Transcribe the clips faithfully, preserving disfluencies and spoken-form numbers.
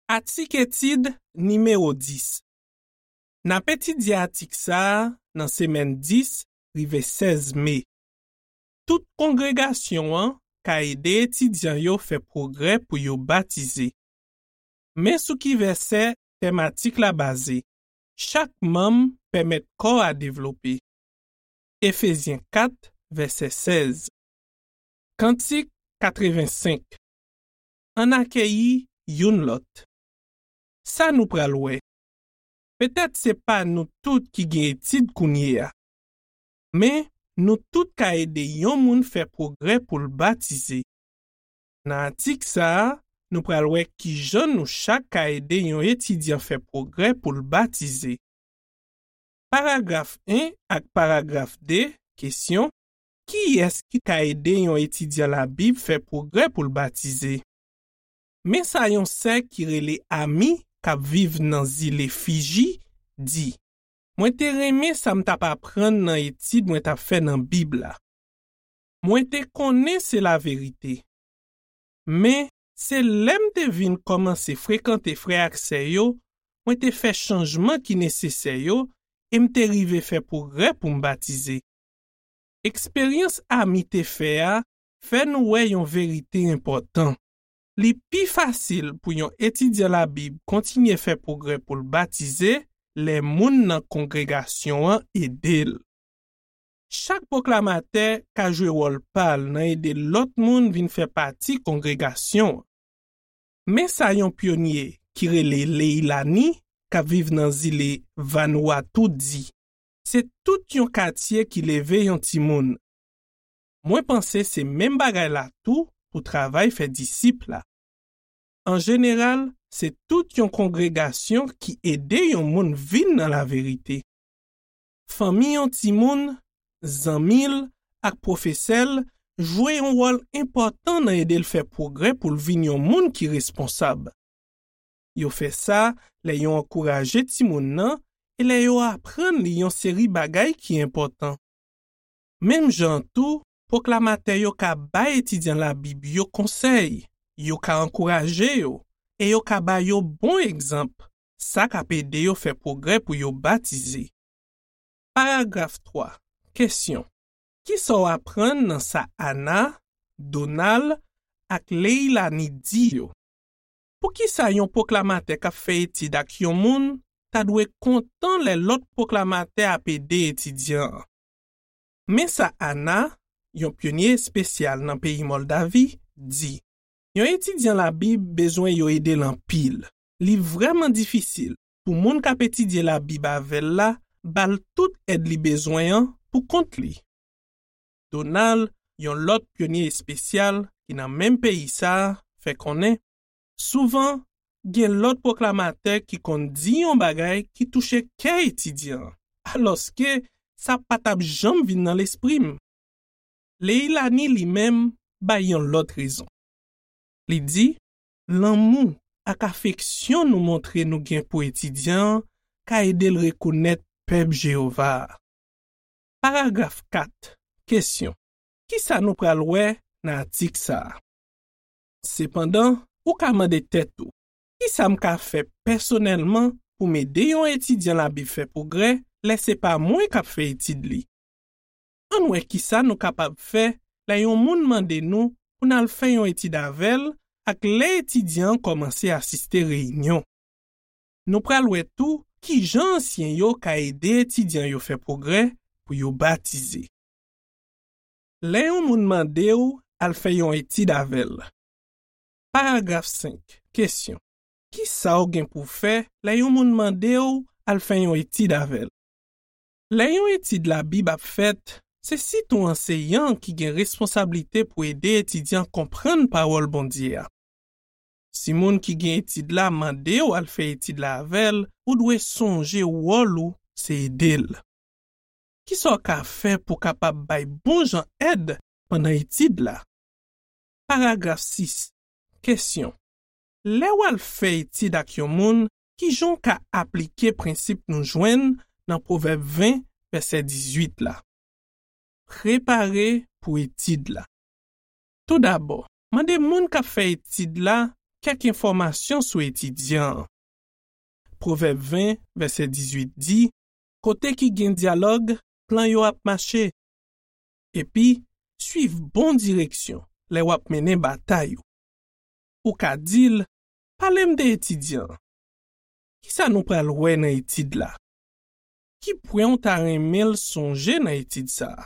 Atik etid nimewo dis. N ap etidye atik sa a nan semèn dis rive sèz me. Tout kongregasyon an ka ede etidyan yo fè pwogrè pou yo batize. Men sou ki vèsè tèm atik la baze. Chak manm pèmèt kò a devlope. Efezyen kat, vèsè sèz. Kantik katrevensenk. Ann akeyi youn lòt. Sa nou pral wè. Petèt se pa nou tout ki gen etid kounye a. Men, nou tout ka ede yon moun fè pwogrè pou l batize. Nan atik sa a, nou pral wè ki jan nou chak ka ede yon etidyan fè pwogrè pou l batize. Paragraf en ak paragraf de, kesyon, kiyès ki ka ede yon etidyan Labib fè pwogrè pou l batize? Men sa yon sè ki rele Ami, k ap viv nan zile Fiji, di, mwen te renmen sa m t ap aprann nan etid mwen t ap fè nan Bib la. Mwen te konnen se laverite. Men, se lè m te vin kòmanse frekante frè ak sè yo, mwen te fè chanjman ki nesesè yo e m te rive fè pwogrè pou m batize. Eksperyans Ami te fè a fè nou wè yon verite enpòtan. Li pi fasil pou yon etidyan Labib kontinye fè pwogrè pou l batize lè moun nan kongregasyon an ede l. Chak pwoklamatè ka jwe wòl pa l nan ede lòt moun vin fè pati kongregasyon an. Men sa yon pyonye ki rele Leilani, k ap viv nan zile Vanuatu, di, se tout yon katye ki leve yon timoun. Mwen panse se menm bagay la tou pou travay fè disip la. An jeneral, se tout yon kongregasyon ki ede yon moun vin nan laverite. Fanmi yon timoun, zanmi l, ak pwofesè l jwe yon wòl enpòtan nan ede l fè pwogrè pou l vin yon moun ki responsab. Yo fè sa lè yo ankouraje timoun nan e lè yo aprann li yon seri bagay ki enpòtan. Menm jan an tou, pwoklamatè yo ka bay etidyan Labib yo konsèy, yo ka ankouraje yo, e yo ka ba yo bon egzanp, sa k ap ede yo fè pwogrè pou yo batize. Paragraf twa. Kesyon. Kisa w aprann nan sa Ana, Donald, ak Leilani di yo? Poukisa yon pwoklamatè k ap fè etid ak yon moun ta dwe kontan lè lòt pwoklamatè ap ede etidyan an? Men sa Ana, yon pyonye espesyal nan peyi Mòldavi, di, yon etidyan Labib bezwen yo ede l anpil. Li vrèman difisil pou moun k ap etidye Labib avè l la ba l tout èd li bezwen an pou kont li. Donald, yon lòt pyonye espesyal ki nan menm peyi sa a, fè konnen, souvan, gen lòt pwoklamatè ki konn di yon bagay ki touche kè etidyan an, alòske sa pa t ap janm vin nan lespri m. Leilani li menm bay yon lòt rezon. Li di, lanmou ak afeksyon nou montre nou gen pou etidyan an ka ede l rekonèt pèp Jewova a. Paragraf kat. Kesyon. Kisa nou pral wè nan atik sa a? Sepandan, ou ka mande tèt ou, kisa m ka fè pèsonèlman pou m ede yon etidyan Labib fè pwogrè lè se pa mwen k ap fè etid li? Ann wè kisa nou kapab fè lè yon moun mande nou pou n al fè yon etid avè l ak lè etidyan an kòmanse asiste reyinyon. Nou pral wè tou ki jan ansyen yo ka ede etidyan yo fè pwogrè pou yo batize. Lè yon moun mande w al fè yon etid avè l. Paragraf senk. Kesyon. Kisa w gen pou w fè lè yon moun mande w al fè yon etid avè l? Lè yon etid Labib ap fèt, se sitou anseyan an ki gen responsablite pou ede etidyan konprann Pawòl Bondye a. Si moun ki gen etid la mande w al fè etid la avè l, ou dwe sonje wòl ou se ede l. Kisa w ka fè pou w kapab bay bon jan èd pandan etid la? Paragraf sis. Kesyon. Lè w al fè etid ak yon moun, ki jan w ka aplike prensip nou jwenn nan Pwovèb ven, vèsè dizuit la? Prepare pou etid la. Toudabò, mande moun k ap fè etid la kèk enfòmasyon sou etidyan an. Pwovèb ven, vèsè dizuit di, kote ki gen dyalòg, plan yo ap mache. Epi, suiv bon direksyon lè w ap mennen batay ou. Ou ka di l, pale m de etidyan an. Kisa nou pral wè nan etid la? Ki pwen w ta renmen l sonje nan etid sa a?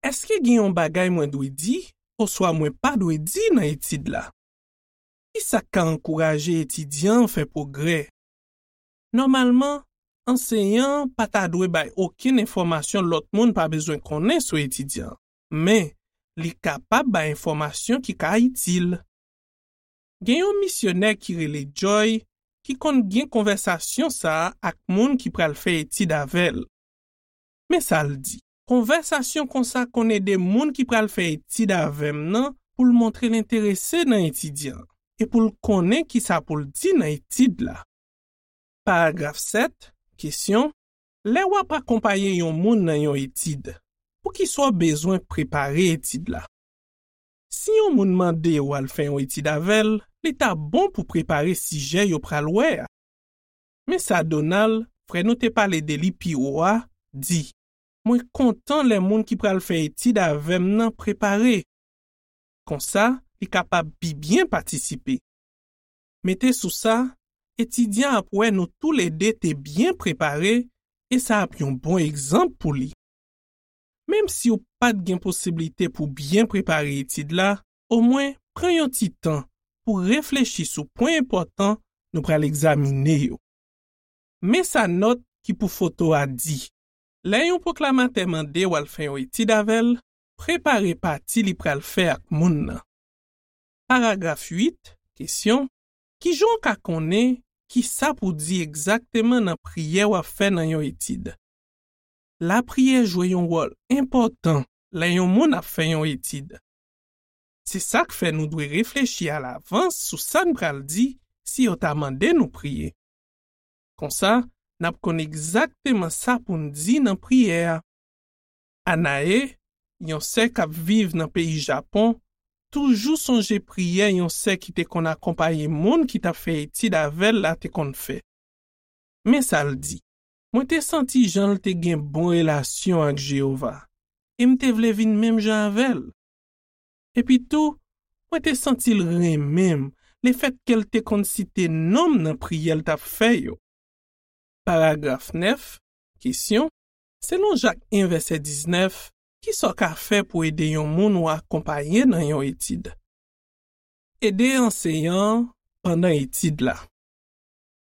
Èske gen yon bagay mwen dwe di oswa mwen pa dwe di nan etid la? Kisa k ka ankouraje etidyan an fè pwogrè? Nòmalman, anseyan an pa ta dwe bay okenn enfòmasyon lòt moun pa bezwen konnen sou etidyan an, men li kapab bay enfòmasyon ki ka itil. Gen yon misyonè ki rele Joy ki konn gen konvèsasyon sa a ak moun ki pral fè etid avè l. Men sa l di, konvèsasyon konsa konn ede moun ki pral fè etid avè m nan pou l montre l enterese nan etidyan an e pou l konnen kisa pou l di nan etid la. Paragraf sèt, kesyon, lè w ap akonpaye yon moun nan yon etid, poukisa w bezwen prepare etid la? Si yon moun mande w al fè yon etid avè l, li ta bon pou prepare sijè yo pral wè a. Men sa Donald, frè nou te pale de li pi wo a, di, mwen kontan lè moun ki pral fè etid avè m nan prepare. Konsa, li kapab pi byen patisipe. Mete sou sa, etidyan ap wè nou toulede te byen prepare e sa ap yon bon egzanp pou li. Menm si w pa t gen posiblite pou byen prepare etid la, omwen pran yon ti tan pou reflechi sou pwen enpòtan nou pral egzamine yo. Men sa nòt ki pou foto a di. Lè yon pwoklamatè mande w al fè yon etid avè l, prepare pati li pral fè ak moun nan. Paragraf uit, kesyon, kijan w ka konnen kisa pou di egzakteman nan priyè w ap fè nan yon etid? Lapriyè jwe yon wòl enpòtan lè yon moun ap fè yon etid. Se sa k fè nou dwe reflechi alavans sou sa n pral di si yo ta mande nou priye. Konsa, n ap konn egzakteman sa pou n di nan priyè a. Anae, yon sè k ap viv nan peyi Japon, toujou sonje priyè yon sè ki te konn akonpaye moun ki t ap fè etid avè l la te konn fè. Men sa l di, mwen te santi jan l te gen bon relasyon ak Jewova, e m te vle vin menm jan avè l. Epitou, mwen te santi l renmen m lefètke l te konn site non m nan priyè l t ap fè yo. Paragraf nèf, kesyon, selon Jak en vèsè diznèf, kisa w ka fè pou ede yon moun w akonpaye nan yon etid? Ede anseyan an pandan etid la.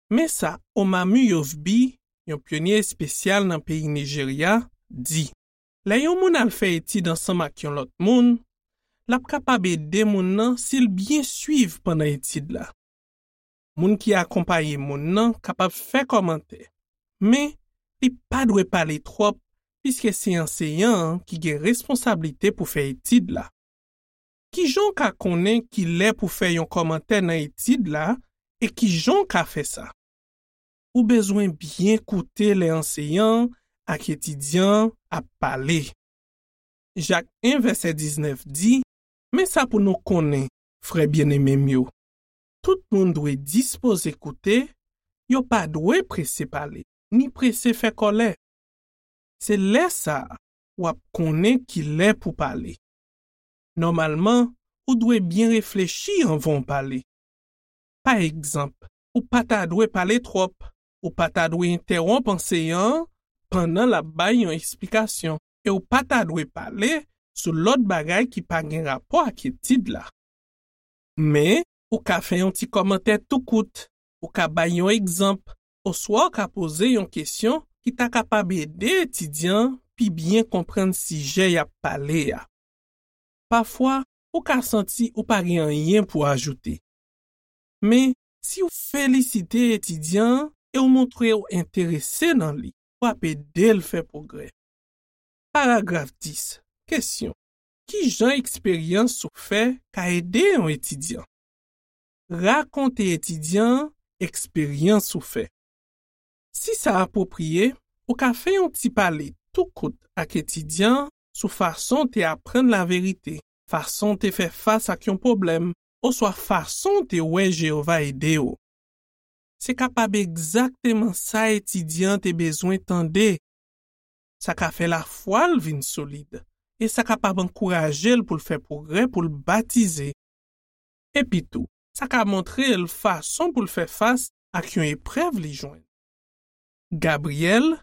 Men sa Omami Yovbi, yon pyonye espesyal nan peyi Nijerya, di, lè yon moun al fè etid ansanm ak yon lòt moun, l ap kapab ede moun nan si l byen swiv pandan etid la. Moun ki akonpaye moun nan kapab fè kòmantè, men li pa dwe pale twòp piske se anseyan an ki gen responsablite pou fè etid la. Kijan w ka konnen ki lè pou fè yon kòmantè nan etid la e kijan w ka fè sa? Ou bezwen byen koute lè anseyan an ak etidyan an ap pale. Jak en vèsè diznèf di, men sa pou nou konnen, frè byeneme m yo, tout moun dwe dispoze koute, yo pa dwe prese pale, ni prese fè kòlè. Se lè sa a w ap konnen ki lè pou pale. Nòmalman, ou dwe byen reflechi anvan w pale. Pa egzanp, ou pa ta dwe pale twòp, ou pa ta dwe entèwonp anseyan an pandan l ap bay yon esplikasyon, e ou pa ta dwe pale sou lòt bagay ki pa gen rapò ak etid la. Men, ou ka fè yon ti kòmantè tou kout, ou ka bay yon egzanp, oswa w ka poze yon kesyon ki ta kapab ede etidyan an pi byen konprann sijè y ap pale a. Pafwa, ou ka santi ou pa gen anyen pou ajoute. Men, si w felisite etidyan an e w montre w enterese nan li, w ap ede l fè pwogrè. Paragraf dis, kesyon, ki jan eksperyans ou fè ka ede yon etidyan? Rakonte etidyan an eksperyans ou fè. Si sa apwopriye, ou ka fè yon ti pale tou kout ak etidyan an sou fason w te aprann laverite, fason w te fè fas ak yon pwoblèm, oswa fason w te wè Jewova ede w. Se kapab egzakteman sa etidyan an te bezwen tande. Sa ka fè lafwa l vin solid, e sa kapab ankouraje l pou l fè pwogrè pou l batize. Epitou, sa ka montre l fason pou l fè fas ak yon eprèv li jwenn. Gabriel,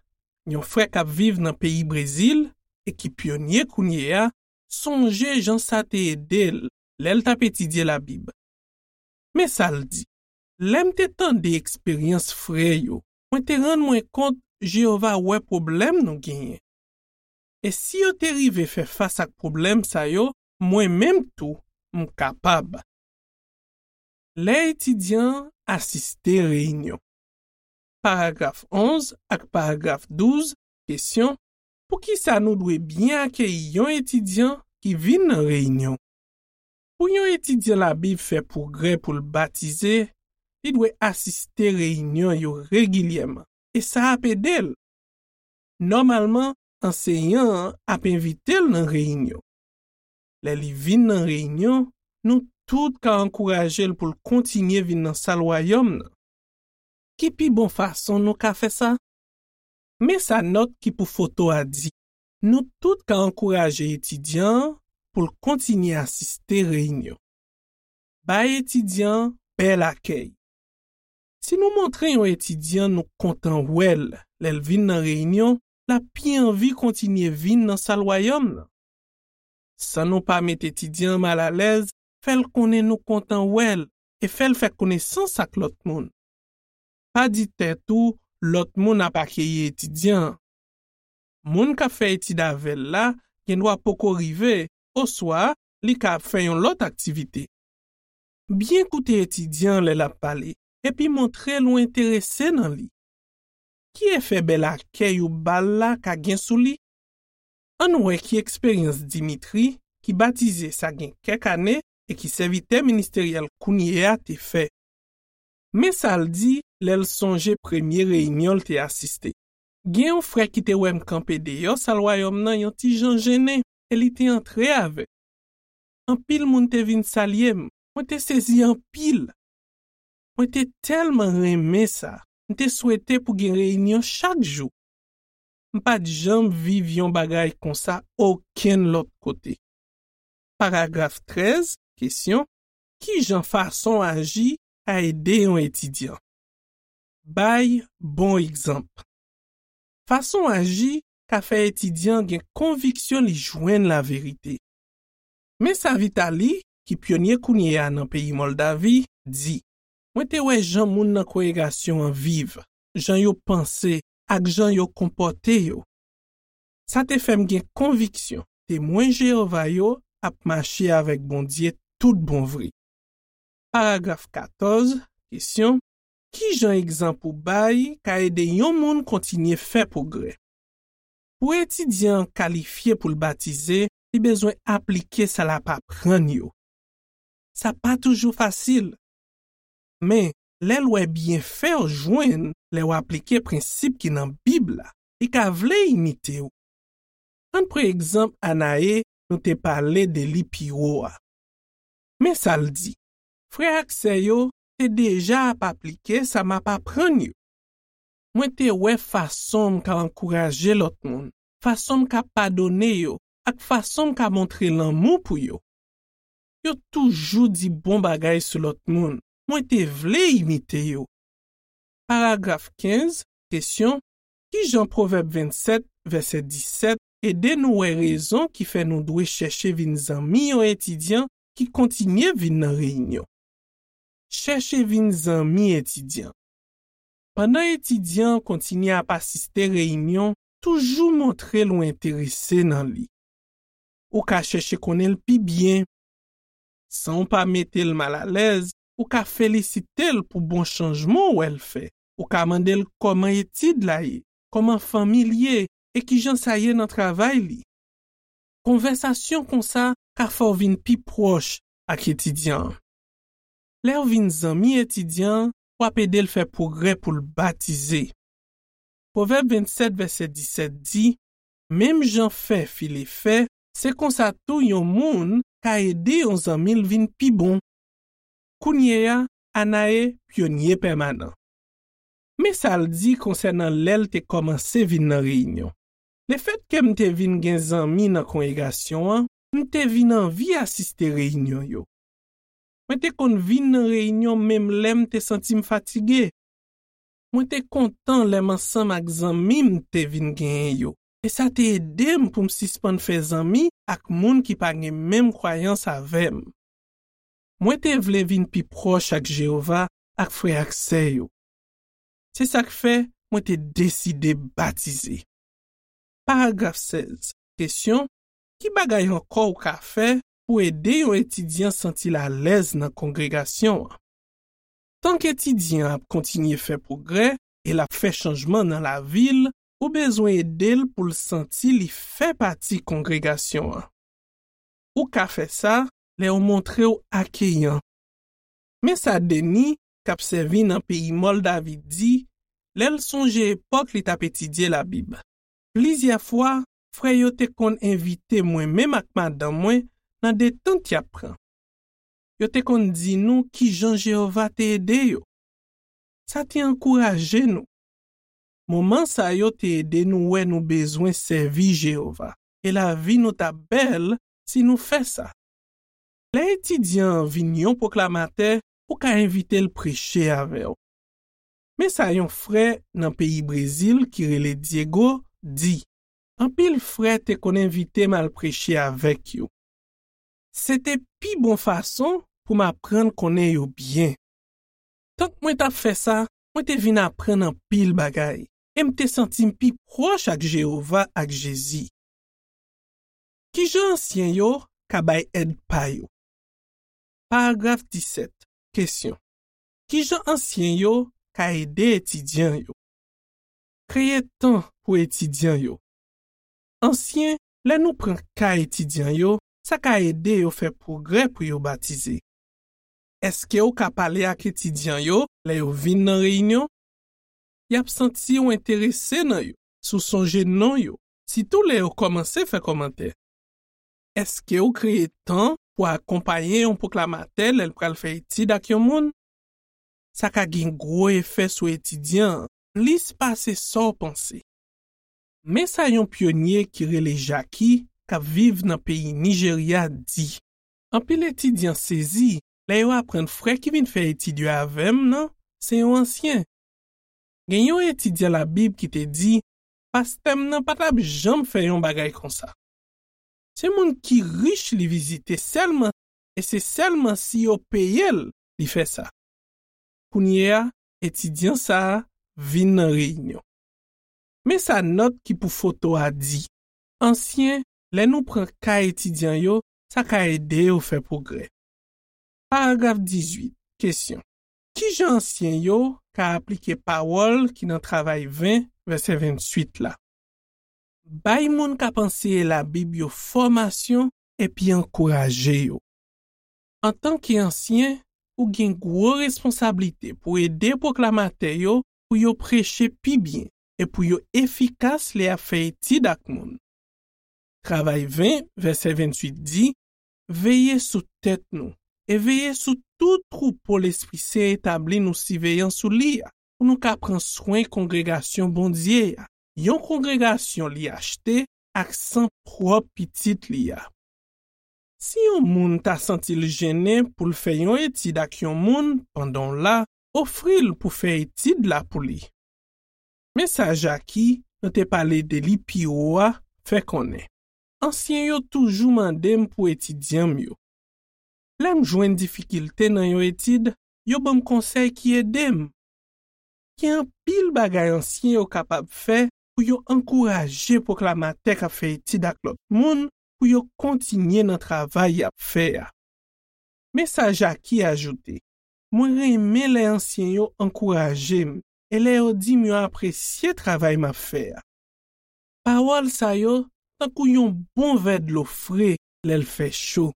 yon frè k ap viv nan peyi Brezil e ki pyonye kounye a, sonje jan sa te ede l lè l t ap etidye Labib. Men sa l di: "Lè m te tande eksperyans frè yo, mwen te rann mwen kont Jewova wè pwoblèm nou genyen. E si yo te rive fè fas ak pwoblèm sa yo, mwen menm tou, m kapab." Lè etidyan an asiste reyinyon. Paragraf onz ak paragraf douz, kesyon: poukisa nou dwe byen akeyi yon etidyan ki vin nan reyinyon? Pou yon etidyan Labib fè pwogrè pou l batize, li dwe asiste reyinyon yo regilyèman, e sa ap ede l. Nòmalman, anseyan an ap envite l nan reyinyon. Lè li vin nan reyinyon, nou tout ka ankouraje l pou l kontinye vin nan Sal Wayòm nan. Ki pi bon fason nou ka fè sa? Men sa nòt ki pou foto a di: nou tout ka ankouraje etidyan an pou l kontinye asiste reyinyon. Bay etidyan an bèl akèy. Si nou montre yon etidyan nou kontan wè l lè l vin nan reyinyon, l ap pi anvi kontinye vin nan Sal Wayòm nan. San nou pa met etidyan an malalèz, fè l konnen nou kontan wè l e fè l fè konesans ak lòt moun. Pa di tèt ou lòt moun ap akeyi etidyan an. Moun k ap fè etid avè l la gendwa poko rive, oswa li ka ap fè yon lòt aktivite. Byen koute etidyan an lè l ap pale, epi montre l ou enterese nan li. Ki efè bèl akèy ou ba l la ka gen sou li? Ann wè ki eksperyans Dimitri, ki batize sa gen kèk ane e ki sèvitè ministeryèl kounye a, te fè. Men sa l di lè l sonje premye reyinyon l te asiste: "Gen yon frè ki te wè m kanpe deyò Sal Wayòm nan yon ti jan jennen, e li te antre avè m. Anpil moun te vin salye m. Mwen te sezi anpil. Mwen te tèlman renmen sa. M te swete pou gen reyinyon chak jou. M pa t janm viv yon bagay konsa okenn lòt kote." Paragraf trèz, kesyon: ki jan fason aji ka ede yon etidyan? Bay bon egzanp. Fason aji ka fè etidyan an gen konviksyon li jwenn laverite. Men sa Vitali, ki pyonye kounye a nan peyi Mòldavi, di: "Mwen te wè jan moun nan kongregasyon an viv, jan yo panse, ak jan yo konpòte yo. Sa te fè m gen konviksyon Temwen Jewova yo ap mache avèk Bondye tout bon vre." Paragraf katòz, kesyon: ki jan egzanp ou bay ka ede yon moun kontinye fè pwogrè? Pou etidyan an kalifye pou l batize, li bezwen aplike sa l ap aprann yo. Sa pa toujou fasil. Men, lè l wè byenfè w jwenn lè w aplike prensip ki nan Bib la, li ka vle imite w. Ann pran egzanp Anae nou te pale de li pi wo a. Men sa l di: "Frè ak sè yo te deja ap aplike sa m ap aprann yo. Mwen te wè fason m ka ankouraje lòt moun, fason m ka padone yo, ak fason m ka montre lanmou pou yo. Yo toujou di bon bagay sou lòt moun. Mwen te vle imite yo." Paragraf kenz, kesyon: ki jan Pwovèb vennsèt, vèsè disèt, ede nou wè rezon ki fè nou dwe chèche vin zanmi yon etidyan ki kontinye vin nan reyinyon? Chèche vin zanmi etidyan. Pandan etidyan an kontinye ap asiste reyinyon, toujou montre l ou enterese nan li. Ou ka chèche konnen l pi byen. San w pa mete l malalèz, ou ka felisite l pou bon chanjman w wè l fè. Ou ka mande l kòman etid la ye, kòman fanmi l ye, e kijan sa ye nan travay li. Konvèsasyon konsa ka fè w vin pi pwòch ak etidyan an. Lè w vin zanmi etidyan an, w ap ede l fè pwogrè pou l batize. Pwovèb vennsèt, vèsè disèt di: "Menm jan fè file fè, se konsa tou yon moun ka ede yon zanmi l vin pi bon." Kounye a, Anae pyonye pèmanan. Men sa l di konsènan lè l te kòmanse vin nan reyinyon. Lefètke m te vin gen zanmi nan kongregasyon an, m te vin anvi asiste reyinyon yo. Mwen te konn vin nan reyinyon menm lè m te santi m fatige. Mwen te kontan lè m ansanm ak zanmi m te vin genyen yo, e sa te ede m pou m sispann fè zanmi ak moun ki pa gen menm kwayans avè m. Mwen te vle vin pi pwòch ak Jewova ak frè ak sè yo. Se sa k fè mwen te deside batize. Paragraf sèz. Kesyon: ki bagay ankò w ka fè pou ede yon etidyan santi l alèz nan kongregasyon an? Tank etidyan an ap kontinye fè pwogrè e l ap fè chanjman nan lavi l, ou bezwen ede l pou l santi li fè pati kongregasyon an. Ou ka fè sa lè w montre w akeyan. Men sa Deni, k ap sèvi nan peyi Mòldavi, di lè l sonje epòk li t ap etidye Labib. Plizyè fwa, frè yo te konn envite mwen menm ak madanm mwen nan detant y ap pran. Yo te konn di nou ki jan Jewova te ede yo. Sa te ankouraje nou. Moman sa yo te ede nou wè nou bezwen sèvi Jewova, e lavi nou t ap bèl si nou fè sa. Lè etidyan an vin yon pwoklamatè, ou ka envite l preche avè w. Men sa yon frè nan peyi Brezil ki rele Diego di: anpil frè te konn envite m al preche avèk yo. Se te pi bon fason pou m aprann konnen yo byen. Tank mwen t ap fè sa, mwen te vin aprann anpil bagay, e m te santi m pi pwòch ak Jewova ak Jezi. Ki jan ansyen yo ka bay èd pa yo? Paragraf disèt. Kesyon: ki jan ansyen yo ka ede etidyan yo? Kreye tan pou etidyan yo. Ansyen, lè nou pran ka etidyan yo, sa ka ede yo fè pwogrè pou yo batize. Èske w ka pale ak etidyan yo lè yo vin nan reyinyon? Y ap santi w enterese nan yo si w sonje non yo, sitou lè yo kòmanse fè kòmantè. Èske w kreye tan pou akonpaye yon pwoklamatè lè l pral fè etid ak yon moun? Sa ka gen gwo efè sou etidyan an, plis pase sa w panse. Men sa yon pyonye ki rele Jackie, k ap viv nan peyi Nijerya, di: anpil etidyan sezi lè yo aprann frè ki vin fè etid yo avè m nan se yon ansyen. Gen yon etidyan Labib ki te di: pastè m nan pa t ap janm fè yon bagay konsa. Se moun ki rich li vizite sèlman, e se sèlman si yo peye l li fè sa. Kounye a, etidyan sa a vin nan reyinyon. Men sa nòt ki pou foto a di: ansyen, lè nou pran ka etidyan yo, sa ka ede yo fè pwogrè. Paragraf dizuit. Kesyon: ki jan ansyen yo ka aplike pawòl ki nan Travay ven, vèsè venntuit la? Bay moun k ap anseye Labib yo fòmasyon epi ankouraje yo. Antanke ansyen, ou gen gwo responsablite pou ede pwoklamatè yo pou yo preche pi byen e pou yo efikas lè y ap fè etid ak moun. Travay ven, vèsè venntuit di: veye sou tèt nou e veye sou tout twoupo Lespri Sen etabli nou siveyan sou li a, pou nou ka pran swen kongregasyon Bondye a, yon kongregasyon li achte ak san pwòp Pitit li a. Si yon moun ta santi l jennen pou l fè yon etid ak yon moun pandan w la, ofri l pou fè etid la pou li. Men sa Jackie, nou te pale de li pi wo a, fè konnen: ansyen yo toujou mande m pou etidyan m yo. Lè m jwenn difikilte nan yon etid, yo ban m konsèy ki ede m. Gen anpil bagay ansyen yo kapab fè pou yo ankouraje pwoklamatè k ap fè etid ak lòt moun pou yo kontinye nan travay y ap fè a. Men sa Jackie ajoute: mwen renmen lè ansyen yo ankouraje m e lè yo di m yo apresye travay m ap fè a. Pawòl sa yo tankou yon bon vè dlo fre lè l fè cho.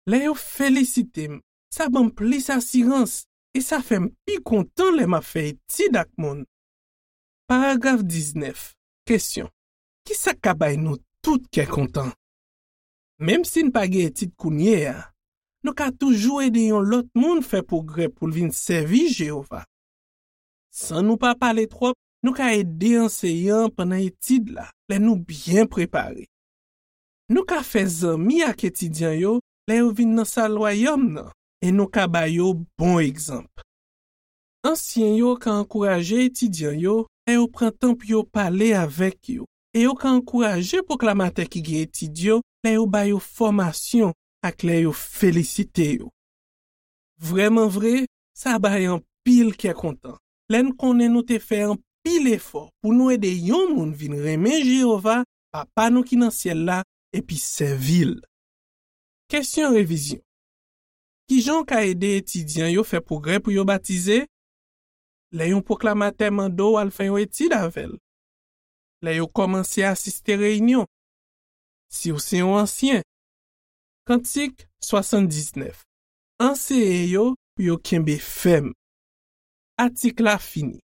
Lè yo felisite m, sa ban m plis asirans e sa fè m pi kontan lè m ap fè etid ak moun. Paragraf diznèf. Kesyon: ki sa k ka bay nou tout kè kontan? Menm si n pa gen etid kounye a, nou ka toujou ede yon lòt moun fè pwogrè pou l vin sèvi Jewova. San nou pa pale twòp, nou ka ede anseyan an pandan etid la, lè nou byen prepare. Nou ka fè zanmi ak etidyan yo lè yo vin nan sal Wayòm nan, e nou ka ba yo bon egzanp. Ansyen yo ka ankouraje etidyan yo lè yo pran tan pou yo pale avèk yo, e yo ka ankouraje pwoklamatè ki gen etid yo lè yo ba yo fòmasyon ak lè yo felisite yo. Vrèman vre, sa bay anpil kè kontan lè n konnen nou te fè anpil efò pou nou ede yon moun vin renmen Jewova, Papa nou ki nan syèl la, epi sèvi l. Kesyon revizyon. Ki jan w ka ede etidyan yo fè pwogrè pou yo batize? Lè yon pwoklamatè mande w al fè yon etid avè l. Lè yo kòmanse asiste reyinyon. Si w se yon ansyen. Kantik swasanndiznèf. Anseye yo pou yo kenbe fèm. Atik la fini.